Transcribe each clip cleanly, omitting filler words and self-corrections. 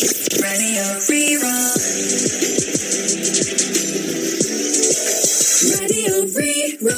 Radio Rí-Rá. Radio Rí-Rá.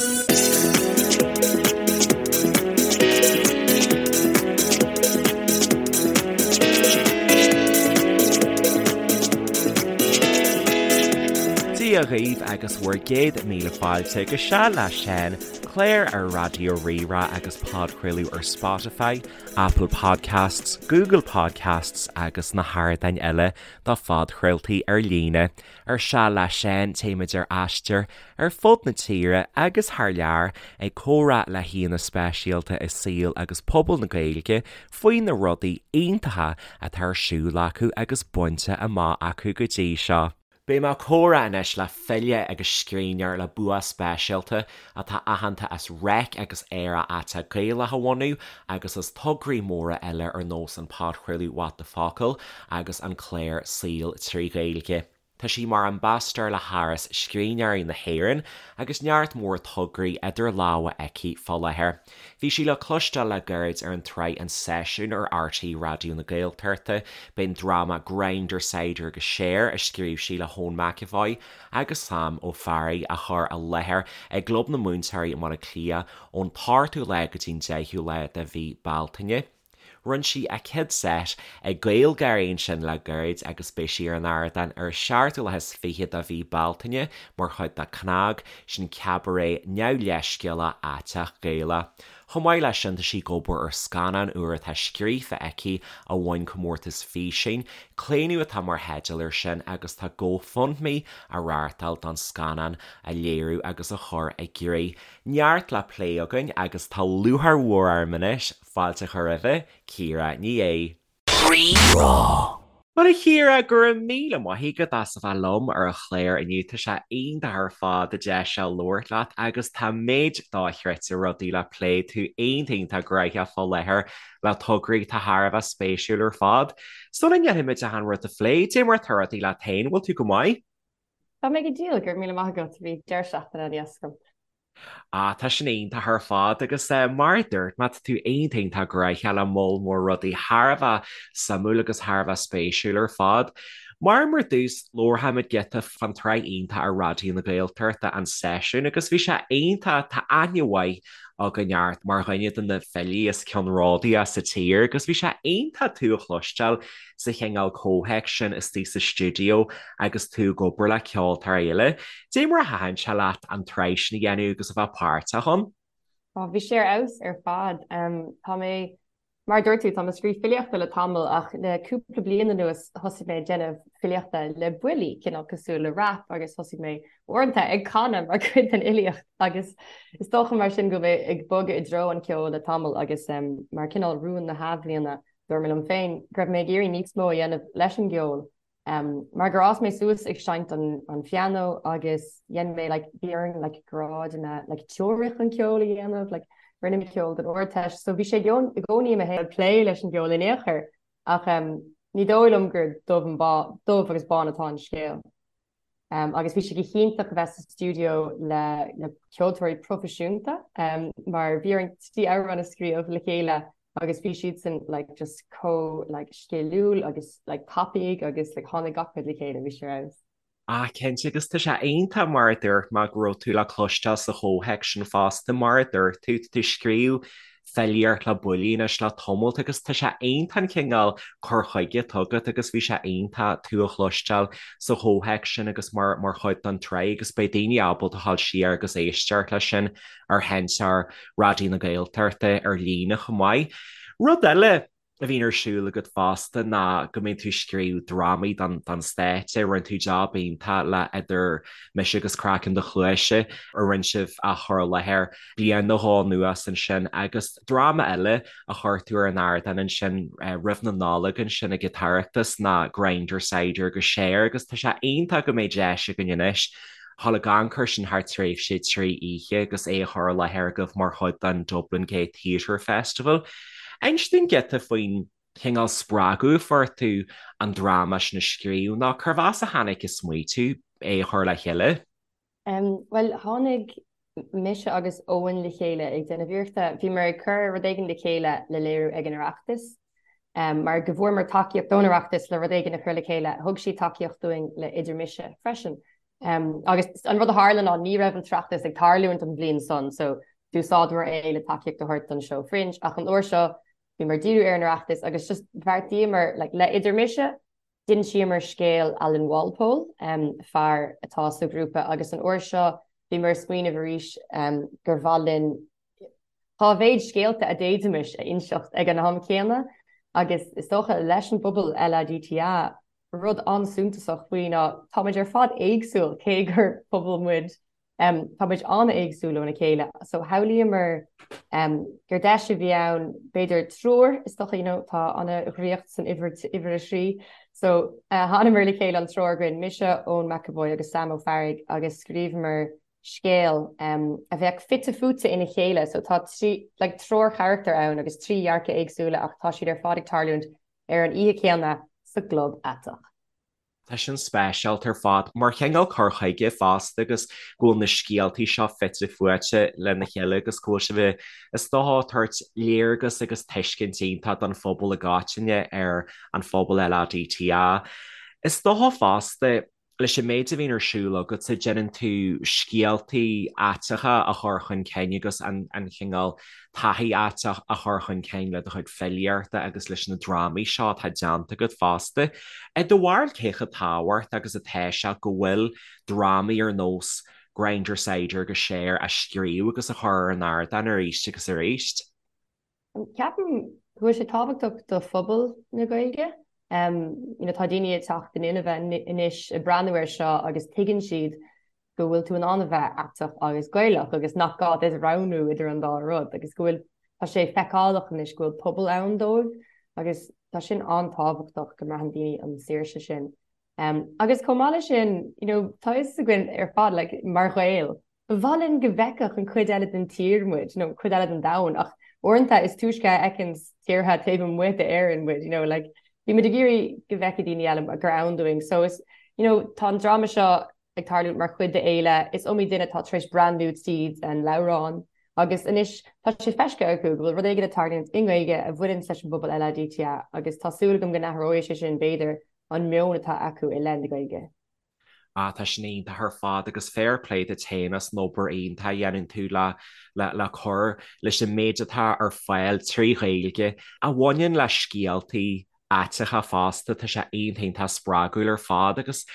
Dia dhaoibh agus bhur gcéad míle fáilte go Seal le Seán, clár ar Raidió Rí-Rá agus podchraoladh ar Spotify, Apple Podcasts, Google Podcasts agus na hardáin eile do phodchraoltaí ar líne. Ar Seal le Seán, téimid ar aistear ar fud na tíre agus thar lear ag comhrá le haíonna speisialta i saol agus pobal na Gaeilge faoi na rudaí iontacha atá ar siúl acu agus bainte amach acu go dtí seo. Beidh mé ag comhrá anois le file agus scríbhneoir le bua speisialta atá aitheanta as Reic agus Aerach Aiteach Gaelach a bhunú agus as tograí móra eile ar nós an podchraoladh What the Focal agus an clár Saol 3 Ghaeilge. Tá sí mar ambasadóir le hÁras Scríbhneoirí na hÉireann agus neart mór tograí idir lámha aici fá láthair. Bhí sí le cloisteáil le gairid ar an tsraith An Seisiún ar RTÉ Raidió na Gaeltachta. B'in dráma Grindr Cider agus Share a scríobh sí le hEoin McEvoy agus Sam Ó Fearraigh á chur i láthair i gClub na Múinteoirí i mBaile Átha Cliath ón t-ochtú lá go dtí'n deichiú lá de mhí Bealtaine. Rinne sí a céad seit ag GaelGÁIRÍ ansin le gairid agus beidh sí ar an ardán ar an seachtú lá is fiche de mhí Bealtaine mar chuid de CnaG, sin Cabaret Neamhleithscéalach Aiteach Gaelach. Chomh maith leis sin tá sí ag obair ar scannán úr atá scríofa aici a bhain comórtas físeáin, Claonadh atá mar theideal air sin agus tá GoFundMe á reáchtáil don scannán a léiriú agus a chur i gcrích. Neart le plé againn agus tá lúcháir mhór orm anois Fáilte a chur roimhe, Ciara Ní É. Rí-Rá. Bhuel a Chiara, go raibh míle maith agat as a bheith liom ar an chlár inniu. Tá sé iontach ar fad an deis seo labhairt leat agus tá méid dochreidte rudaí le plé. Tú iontach iontach gnóthach fá láthair le tograí atá thar a bheith spéisiúil ar fad. Sula ndéanfaimid achan rud a phlé, cad é mar atá rudaí leat féin, bhfuil tú go maith? Tá mé go diail, go raibh míle maith agat, bhí deireadh seachtaine an-deas agam. Ah, tá sin iontach ar fad agus mar a dúirt mé, tá tú iontach iontach gnóthach le moll mór rudaí thar a bheith suimiúil agus thar a bheith spéisiúil ar fad. Mar mar dtús, labharfaimid giota fán tsraith iontach ar Raidió na Gaeltachta, An Seisiún, agus bhí sé iontach, tá aithne mhaith againn ort mar dhuine de na filí is ceannródaíche sa tír agus bhí sé iontach tú a chloisteáil sa chineál comhthéacs sin istigh sa stiúideo agus tú ag obair le ceoltóirí eile. Dé mar a thaitin sé leat an tsraith sin a dhéanamh agus a bheith páirteach ann? Ó, bhí sé ar fheabhas ar fad. Tá mé, mar a dúirt tú, tá mé ag scríobh filíochta le tamall ach le cúpla bliain anuas thosaigh mé ag déanamh filíochta le buillí, cineál cosúil le rap agus thosaigh mé uaireanta ag canadh mar chuid den fhilíocht agus is dócha mar sin go bhfuil mé ag bogadh i dtreo an cheoil le tamall agus mar cineál rún na hathbhliana Dúirt mé liom féin go raibh mé ag iarraidh níos mó a dhéanamh leis an gceol mar gur fhás mé suas ag seinnt an phianó agus dhein mé like bhí orainn like grádanna like teoiric an ceol a dhéanamh like rinne mé ceol don Ardteist so bhí sé i gcónaí i mo shaol plé leis an gceol in aon chor ach ní dóigh liom gur dubh and bán dubh agus bán atá an scéal. Agus bhí sé go hiontach a bheith sa stiúideo le le ceoltóirí proifisiúnta mar bhí orainn trí amhrán a scríobh le chéile agus bhí siadsan like just chomh like sciliúil agus like tapaidh agus like tháinig gach rud le chéile, bhí sé ar fheabhas. Ah cinnte agus tá sé iontach mar a dúirt mé go raibh tú le cloisteáil sa chomhthéacs sin fosta mar a dúirt tú, tá tú ag scríobh filíocht le buillí anois le tamalt agus tá sé iontach an cineál cur chuige atá agat agus bhí sé iontach tú a chloisteáil sa chomhthéacs sin agus mar mar chuid den tsraith agus beidh daoine ábalta a ghabháil siar agus éisteacht leis sin ar sheinnteoir Raidió na Gaeltachta ar líne chomh maith. Rud eile a bhíonn ar siúl agat fosta ná go mbíonn tú ag scríobh drámaí don stáitse. Rinne tú jab iontach le Idir Mise agus Craiceann do Chluaise a rinne sibh a chur i láthair bliain nó dhó anuas ansin agus dráma eile a chuir tú ar an ardán ansin roimh na Nollag ansin ag an tOireachtas ná Grindr Cider agus Share agus tá sé iontach go mbeidh deis againn anois dhul ag amharc air sin thar tréimhse 3 oíche agus é a chur i láthair agaibh mar chuid den Dublin Gay Theatre Festival. Inis dúinn giota faoin chineál spreagadh a fuair tú an dráma sin a scríobh nó cérbh as a tháinig an smaoitiú é a chur le chéile? Bhuel, tháinig mise agus Eoin le chéile ag déanamh iarrachta, bhíomar ag cur rud éigin le chéile le léiriú ag an Oireachtas. Mar go bhfuaireamar tacaíocht ón Oireachtas le rud éigin a chur le chéile, thug siad tacaíocht dúinn le Idir Mise freisin. Agus an rud a tharla ná ní raibh an tOireachtas ag tarlúint an bhliain san so d'úsáideamar é le tacaíocht a thabhairt don seó Fringe ach an uair seo bhíomar ag díriú ar an Oireachtas agus just bheartaíomar like le Idir Mise d'insíomar scéal Alan Walpole, fear atá sa ghrúpa agus an uair seo bhíomar ag smaoineamh arís gur mhaith linn Cá mhéad scéalta a d'fhéadfaimis a inseacht ag an am céanna? Agus is dócha, leis an bpobal LADTA, rud an-suntasach faoi ná táimid ar fad éagsúil, cé gur pobal muid, táimid an-éagsúil óna chéile. So shamhlaíomar gur deis a bhí ann, b'fhéidir triúr, is dócha, you know, tá an-dhraíocht san uimhir, uimhir a thrí. So thánamar le chéile an triúr againn, mise, Eoin McEvoy agus Sam Ó Fearraigh agus scríobhamar scéal a bheadh fite fuaite ina chéile so tá trí like triúr charachtar ann agus trí dhearcadh éagsúla ach tá siad ar fad ag tarlúint ar an oíche chéanna sa gclub aiteach. Tá sin speisialta ar fad mar chineál cur chuige fosta agus go bhfuil na scéaltaí seo fite fuaite lena chéile agus go bhfuil sibh is dócha ag tabhairt léargas agus tuiscint iontach don phobal i gcoitinne ar an phobal LADTA. Is dócha fosta leis an méid a bhíonn ar siúl agatsa, déanann tú scéaltaí aiteacha a chur chun cinn agus an cineál taithí aiteach a chur chun cinn le do chuid filíochta agus leis na drámaí seo atá déanta agat fosta. I do bharúil cé chomh tábhachtach agus atá sé go bhfuil drámaí ar nós Grindr Cider agus Cher á scríobh agus á chur ar an ardán arís agus arís? Ceapaim go bhfuil sé tábhachtach do phobal na Gaeilge. You know, tá daoine ag teacht in inmhe anois ag breathnú air seo agus tuigeann siad go bhfuil tú in ann a bheith aiteach agus Gaelach agus nach gá duit roghnú idir an dá rud agus go bhfuil, tá sé feiceálach anois go bhfuil pobal ann dóibh agus tá sin an-tábhachtach go mbraitheann daoine an saoirse sin. Agus chomh maith leis sin, you know, tá fhios againn ar fad, like, mar Ghaeil, Ba mhaith linn go bhfeicfeadh an chuid eile den tír muid, nó an chuid eile den domhan, ach uaireanta is túisce a fheiceann tíortha taobh amuigh d'Éirinn muid, you know, like, bímid ag iarraidh go bhfeicfidh daoine eile gur ann dúinn. So is, you know, tá an dráma seo ag tarlúint mar chuid d'fhéile, is iomaí duine atá tar éis breathnú tríd an leabhrán agus anois tá sé feiscithe acu go bhfuil rud éigin ag tarlúint i nGaeilge a bhaineann leis an bpobal LADTA agus tá súil agam go n-athróidh sé sin, b'fhéidir, an meon atá acu i leith na Gaeilge. Ah, tá sin iontach ar fad agus fair play duit féin as an obair iontach a dhéanann tú le le cur leis an méid atá ar fáil trí Ghaeilge a bhaineann le scéaltaí aiteacha fosta, tá sé iontach iontach spreagúil ar fad agus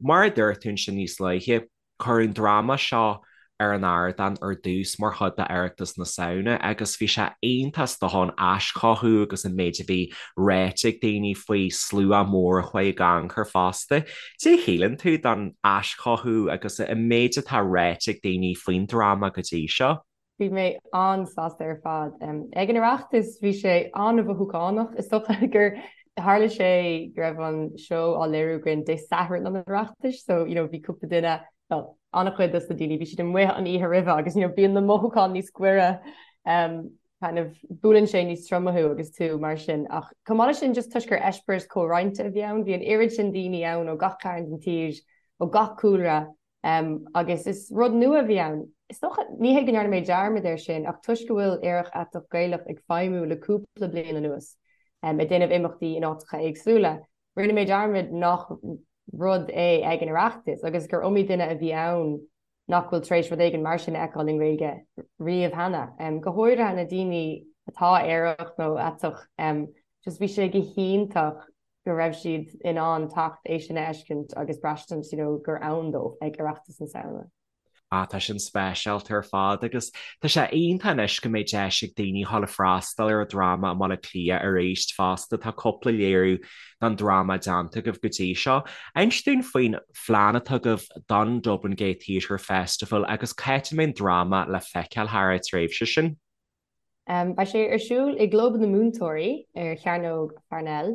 mar a dúirt tú ansin níos luaithe, Cuireadh an dráma seo ar an ardán ar dtús mar chuid d'Oireachtas na Samhna agus bhí sé iontach is dócha an aischothú agus an méid a bhí ráite ag daoine faoi, slua mór a chuaigh ag amharc fosta. Cad é a shíleann tú don aischothú agus an méid atá ráite ag daoine faoin dráma go dtí seo? Bhí mé an-sásta ar fad. Ag an Oireachtas bhí sé an-mhothúchánach. Is dócha gur tharla sé go raibh an seó á léiriú againn Dé Sathairn an Oireachtais so you know bhí cúpla duine, well an-chuid dos na daoine, bhí siad amuigh an oíche roimhe agus you know bíonn na mothúcháin níos gaire kind of buaileann sé níos troime thú agus tú mar sin. Ach chomh maith leis sin just toisc gur eispéireas comhroinnte a bhí ann, bhí an oiread sin daoine ann ó gach cearn den tír, ó gach cúlra, Agus is rud nua a bhí ann. Is dócha, ní hé go ndearna mé dearmad air sin, ach toisc go bhfuil Aerach Aiteach Gaelach ag feidhmiú le cúpla bliain anuas, ag déanamh imeachtaí in áiteacha éagsúla, rinne mé dearmad nach rud é ag an Oireachtas agus gur iomaí duine a bhí ann nach bhfuil tar éis rud éigin mar sin a fheiceáil i nGaeilge riamh cheana. Go háirithe na daoine atá aerach nó aiteach, just bhí sé go hiontach go raibh siad in ann teacht é sin a fheiscint agus braistint you know gur ann dóibh ag Oireachtas na Samhna. Ah, tá sin speisialta ar fad agus tá sé iontach anois go mbeidh deis ag daoine dhul ag freastal ar an dráma i mBaile Átha Cliath arís fosta. Tá cúpla léiriú den dráma déanta agaibh go dtí seo. Inis dúinn faoin phlean atá agaibh don Dublin Gay Theatre Festival agus cá háit a mbeidh an dráma le feiceáil thar an tréimhse sin. Beidh sé ar siúl i gClub na Múinteoirí ar Chearnóg Pharnell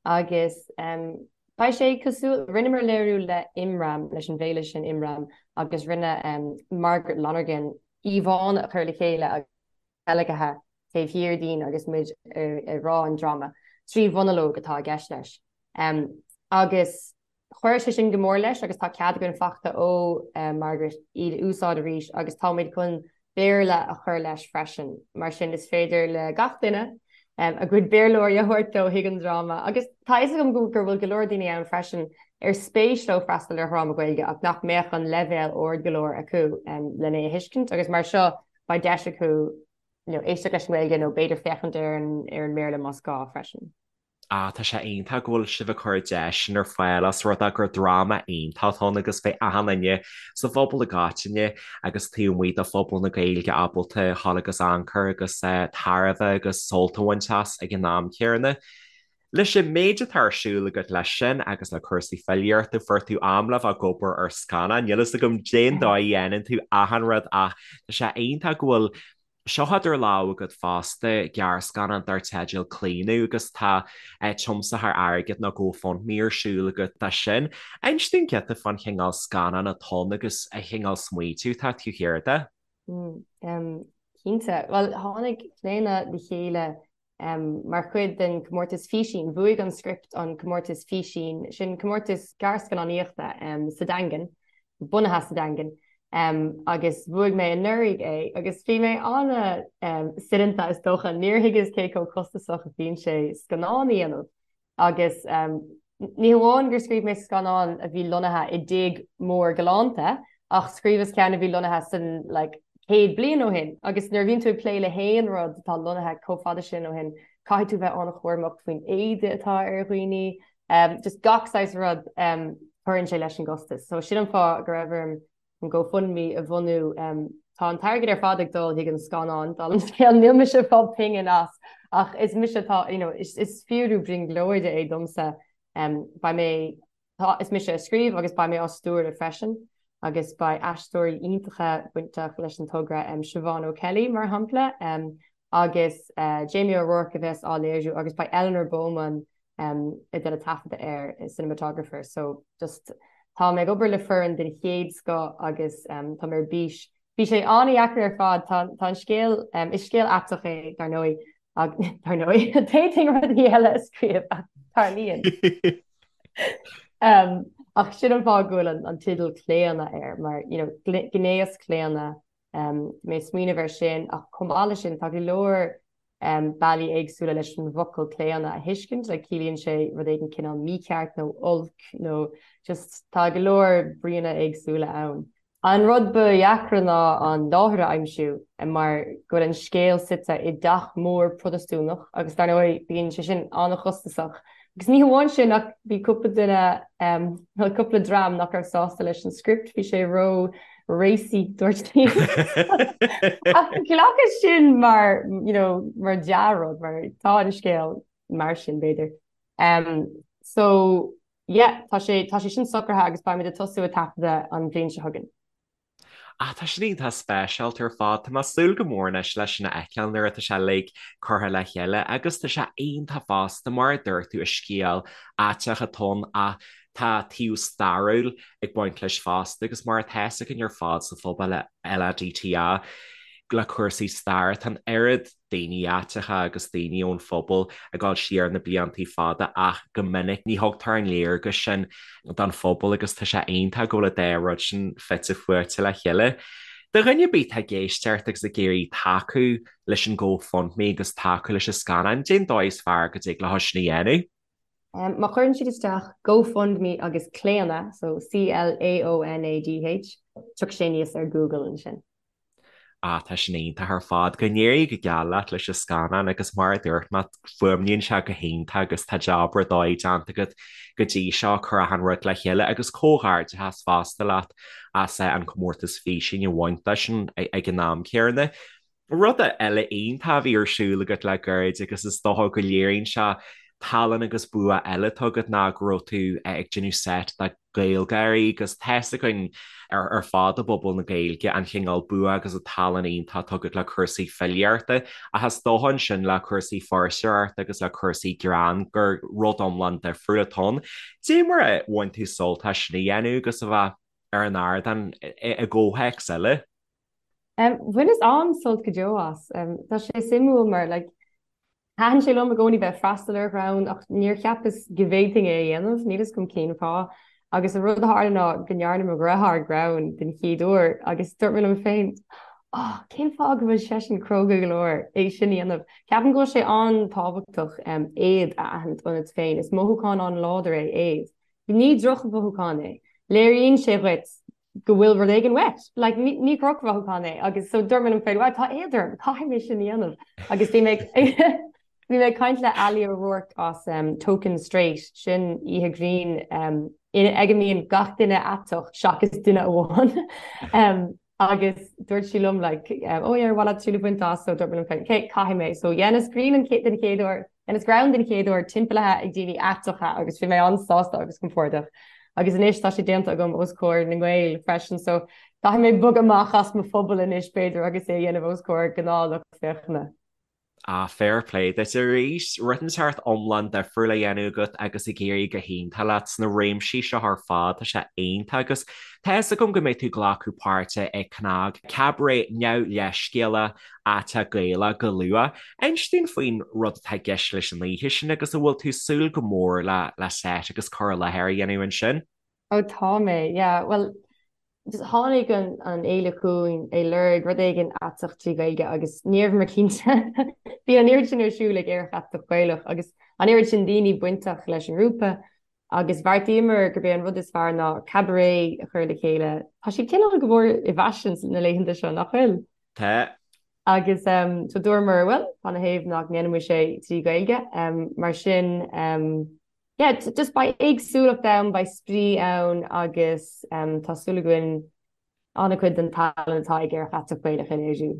agus beidh sé cosúil, rinneamar léiriú le Imram, leis an bhféile sin Imram agus rinne Margaret Lonergan íomhánna a chur le chéile agus teilgthe taobh thiar dínn agus muid ag rá an dráma, 3 mhonalóg atá i gceist leis. Agus Chuir sé sin go mór leis agus tá cead againn faighte ó Margaret iad a úsáid arís agus táimid chun Béarla a chur leis freisin. Mar sin is féidir le gach duine a gcuid Béarlóirí a thabhairt leo chuig an dráma. Agus tá a fhios agam go bhfuil go leor daoine ann freisin ar spéis leo freastal ar dhráma Gaeilge ach nach mbeadh an leibhéal ard go leor acu lena é a thuiscint agus mar seo beidh deis acu éisteacht leis an nGaeilge nó b'fhéidir féachaint ar an mBéarla más gá freisin. Ah, tá sé iontach go bhfuil sibh ag cur deis sin ar fáil os rud é gur dráma iontach atá ann agus beidh achan duine sa phobal i gcoitinne agus taobh amuigh de phobal na Gaeilge ábalta dhul agus amharc air agus tairbhe agus sult a bhaint as ag an am céanna. Leis an méid atá ar siúl agat leis sin agus le cúrsaí filíochta, fuair tú am le bheith ag obair ar scannán. Níl fhios agam cén dóigh a dhéanann tú achan rud ach tá sé iontach go bhfuil seo idir lámha agat fosta, gearrscannán dar teideal Claonadh agus tá tiomsaitheoir airgid nó GoFundMe ar siúl agat dó sin. Inis dúinn giota fán chineál scannán atá ann agus an chineál smaointiú atá taobh thiar de. Cinnte. Bhuel, tháinig Claonadh le chéile Mar chuid den chomórtas Físín, bhuaigh an script an comórtas Físín, sin comórtas gearrscannánaíochta sa Daingean, bunaithe sa Daingean, agus bhuaigh mé anuraidh é agus bhí mé an-soineanta is dócha, níor thuigeas cé chomh costasach a bhíonn sé scannán a dhéanamh. Agus ní hamháin gur scríobh mé scannán a bhí lonnaithe i dtigh mór galánta, ach scríobhas ceann a bhí lonnaithe san like 100 bliain ó shin. Agus nuair a bhíonn tú ag plé le haon rud atá lonnaithe chomh fada sin ó shin, caithfidh tú bheith an-chúramach faoin éide atá ar dhaoine, just gach saghas rud, cuireann sé leis an gcostas. So sin an fáth go raibh orm an GoFundMe a bhunú. Tá an t-airgead ar fad ag dul chuig an scannán, dála an scéil, níl mise ag fáil pingin as ach is mise atá, you know, is fíorú brionglóide é domsa. Beidh mé, tá, is mise a scríobh agus beidh mé á stiúradh freisin agus beidh aisteoirí iontacha bainteach leis an togra, Siobhán O'Kelly mar shampla agus Jamie O'Rourke a bheas á léiriú agus beidh Eleanor Bowman ag déanamh taifeadadh air, cinematographer, so just tá mé ag obair le foireann den chéad scoth agus tá mé ar bís. Bhí sé an-dheacair ar fad, tá tá an scéal, is scéal aiteach é dar ndóigh, dar ndóigh, d'fhéadfainn rudaí eile a scríobh ach tarlaíonn. Ach sin an fáth go bhfuil an teideal Claonadh air, mar you know gnéaschlaonadh, bhí mé ag smaoineamh air sin ach chomh maith leis sin tá go leor bealaí éagsúla leis an bhfocal claonadh a thuiscint, like ciallaíonn sé rud éigin cineál mícheart nó olc nó just tá go leor bríonna éagsúla ann. An rud ba dheacra ná an láthair a aimsiú mar go bhfuil an scéal suite i dteach mór Protastúnach agus dar ndóigh bíonn sé sin an-chostasach. Agus ní hamháin sin ach bhí cúpla duine, nó cúpla dream nach raibh sásta leis an script, bhí sé ró racy dúirt siad. Ach ghlacas sin mar, you know, mar dea-rud, mar tá an scéal mar sin b'fhéidir. Um, so, yeah, tá sé, tá sé sin socraithe agus beimid ag tosú ag taifeadadh an bhliain seo chugainn. Ah, tá sin iontach speisialta ar fad. Tá mé ag súil go mór anois leis sin a fheiceáil nuair atá sé uilig curtha le chéile agus tá sé iontach fosta mar a dúirt tú is scéal aiteach atá ann ach tá taobh stairiúil ag baint leis fosta agus mar atá fhios againn ar fad sa phobal LADTA le cúrsaí staire tá an oiread daoine aiteacha agus daoine ón phobal ag dul siar na bliantaí fada ach go minic ní thugtar an léargas sin don phobal agus tá sé iontach go bhfuil an dá rud sin fite fuaite le chéile. Do dhuine ar bith atá ag éisteacht agus ag iarraidh tacú leis an GoFundMe agus tacú leis an scannán, cén dóigh is fearr go dtig leo sin a dhéanamh? Má chuireann siad isteach GoFundMe agus Claonadh, so C-L-A-O-N-A-D-H, tiocfaidh sé aníos ar Google ansin. Ah, tá sin iontach ar fad. Go n-éirí go geal leat leis an scannán agus mar a dúirt mé, fuaimníonn sé go hiontach agus tá jab ar dóigh déanta agat go dtí seo, cur achan rud le chéile agus comhghairdeachas fosta leat as an comórtas físín a bhaint de sin ag an am céanna. Rud eile iontach a bhí ar siúl agat le gairid agus is dócha go léiríonn sé tallann agus bua eile atá agat ná go raibh tú ag déanamh seit de GaelGÁIRÍ agus tá fhios againn ar fad i bpobal na Gaeilge an chineál bua agus an tallann iontach atá agat le cúrsaí filíochta ach is dócha ansin le cúrsaí fuirseoireachta agus le cúrsaí greann gur rud iomlán difriúil atá ann. Dé mar a bhain tú sult as sin a dhéanamh agus a bheith ar an ardán i gcomhthéacs eile? Bhaineas an-sult go deo as. Tá sé suimiúil mar like Thaitin sé liom i gcónaí bheith ag freastal ar ghreann ach níor cheapas go bhféadfainn é a dhéanamh, níl fhios agam cén fáth. Agus an rud a tharla ná go ndearna mo dheartháir greann den chéad uair agus dúirt mé liom féin. Oh, cén fáth go bhfuil seisean cróga go leor é sin a dhéanamh? Ceapaim go bhfuil sé an-tábhachtach éad a aithint ionat féin. Is mothúchán an-láidir é éad. Ní drochmhothúchán é. Léiríonn sé dhuit go bhfuil rud éigin uait. Like, ní, ní drochmhothúchán é. Agus so dúirt mé liom féin, well, tá éad orm, caithfidh mé sin a dhéanamh. Agus bhí mé bhí mé ag caint le Ali O'Rourke as um, Token Straight, sin oíche grinn um, ag a mbíonn gach duine aiteach seachas duine amháin. um, Agus dúirt sí liom like oh yeah ar mhaith leat triail a bhaint as so dúirt mé liom féin okay caithfidh mé so dhéanas grinn an den chéad uair dhéanas greann den chéad uair timpeallaithe ag daoine aiteacha agus bhí mé an-sásta agus compordach agus anois tá sé déanta agam os comhair na nGael freisin so caithfidh mé bogadh amach as mo phobal anois b'fhéidir agus é a dhéanamh os comhair gnáthlucht féachana. Ah, fair play duit arís. Rud inteacht iomlán difriúil á dhéanamh agat agus ag éirí go hiontach leat sna réimsí seo ar fad. Tá sé iontach agus tá fhios agam go mbeidh tú ag glacadh páirte i CnaG, Cabaret Neamhleithscéalach Aiteach Gaelach go luath. Inis dúinn faoin rud atá i gceist leis an oíche sin agus an bhfuil tú ag súil go mór le le seit agus cur i láthair a dhéanamh ansin? Ó tá mé, yeah. Bhuel, just tháinig an an fhéile chugainn ag lorg rud éigin aiteach trí Ghaeilge agus ní rabhamar cinnte. Bhí an oiread sin ar siúl ag Aerach Aiteach Gaelach agus an oiread sin daoine bainteach leis an ngrúpa agus bheartaíomar gurb é an rud is fearr ná cabaret a chur le chéile. Tá siad cineál go mór i bhfaisean na laethanta seo, nach bhfuil? Tá. Agus so dúramar, bhuel, cad ina thaobh nach ndéanfaimis é trí Ghaeilge. Mar sin, Yeah, just beidh éagsúlacht ann, beidh spraoi ann agus tá súil againn an-chuid den tallann atá ag Aerach Aiteach Gaelach a léiriú.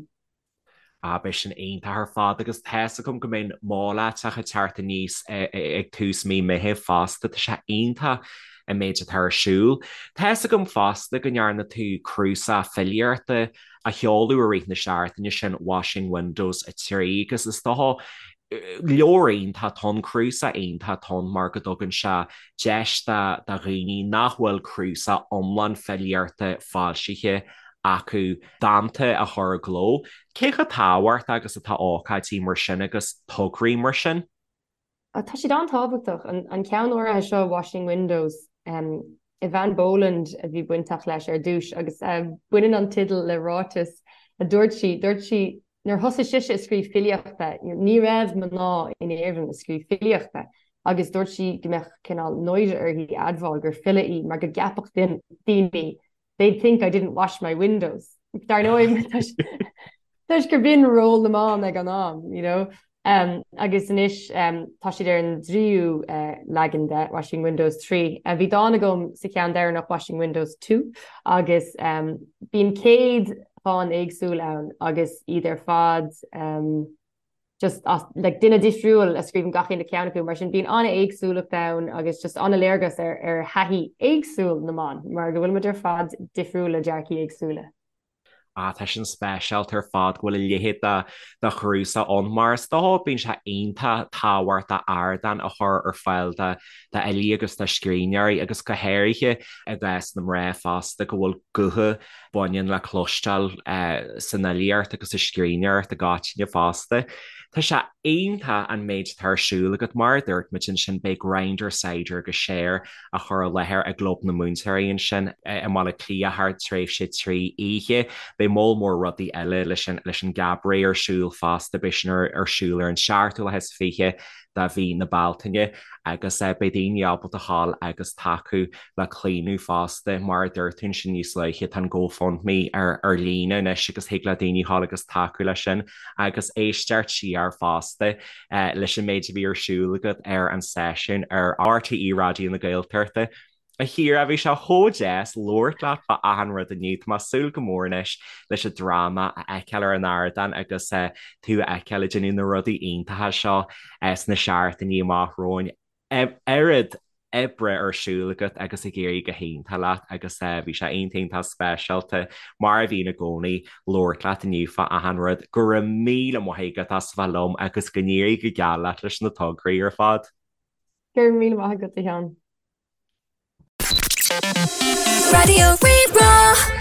Ah, beidh sin iontach ar fad agus tá fhios agam go mbeidh an Mol Aiteach ag teacht aníos ag tús mí Meithimh fosta, tá sé iontach an méid atá ar siúl. Tá fhios agam fosta go ndearna tú cnuasach filíochta a sheoladh i rith na seachtaine sin, Washing Windows 3, agus is dócha leabhar iontach atá ann, cnuasach iontach atá ann mar go dtugann sé deis do dhaoine nach bhfuil cnuasach iomlán filíochta foilsithe acu dánta a chur i gcló. Cé chomh tábhachtach agus atá ócáidí mar sin agus tograí mar sin? Tá siad an-tábhachtach. An ceann áirithe seo, Washing Windows, Eavan Boland a bhí bainteach leis ar dtús agus baineann an teideal le ráiteas a dúirt sí. Dúirt sí nuair thosaigh sise ag scríobh filíochta, ní raibh mná in Éirinn ag scríobh filíochta agus dúirt sí go mbeadh cineál náire uirthi admháil gur file í mar go gceapfadh daoine they'd think I didn't wash my windows. Dar ndóigh, toisc gur b'in ról na mban ag an am, you know. Um, agus anois um, tá siad ar an dtríú uh, leagan de Washing Windows 3. Uh, bhí dán agam sa cheann deireanach Washing Windows 2 agus um, bíonn 100 dhán éagsúil ann agus iad ar fad um, just as like duine difriúil a scríobhann gach aon cheann acu, mar sin bíonn an-éagsúlacht ann agus just an-léargas ar ar thaithí éagsúil na mban, mar go bhfuil muid ar fad difriúil le dearcaí éagsúla. Ah, tá sin speisialta ar fad go bhfuil a leithéid de de chnuasach ann, mar is dócha bíonn sé iontach tábhachtach ardán a chur ar fáil do d'fhilí agus do scríbhneoirí agus go háirithe i gcás na mná fosta go bhfuil gutha baineann le cloisteáil san fhilíocht agus sa scríbhneoireacht i gcoitinne fosta. Tá sé iontach an méid atá ar siúl agat, mar a dúirt muid ansin, beidh Grindr, Cider agus Share á chur i láthair i gClub na Múinteoirí ansin i mBaile Átha Cliath thar tréimhse 3 oíche. Beidh moll mór rudaí eile leis an gCabaret ar siúl fosta, beidh sin ar siúl ar an seachtú lá is 20 de mhí na Bealtaine agus beidh daoine ábalta ghabháil agus tacú le Claonadh fosta. Mar a dúirt tú ansin níos luaithe, tá an GoFundMe ar ar líne anois agus thig le daoine ghabháil agus tacú leis sin agus éisteacht siar fosta leis an méid a bhí ar siúl agat ar an seisiún ar RTÉ Raidió na Gaeltachta. A Chiara, bhí sé chomh deas labhairt leat fá achan rud inniu. Tá mé ag súil go mór anois leis an dráma a fheiceáil ar an ardán agus tú a fheiceáil ag déanamh na rudaí iontacha seo sna seachtainí amach romhainn. Oiread oibre ar siúl agat agus ag éirí go hiontach leat agus bhí sé iontach iontach speisialta, mar a bhíonn i gcónaí, labhairt leat inniu fá achan rud. Go raibh míle maith agat as a bheith liom agus go n-éirí go geal leat leis na tograí ar fad. Go raibh míle maith agat, a Sheáin. Raidió Rí-Rá.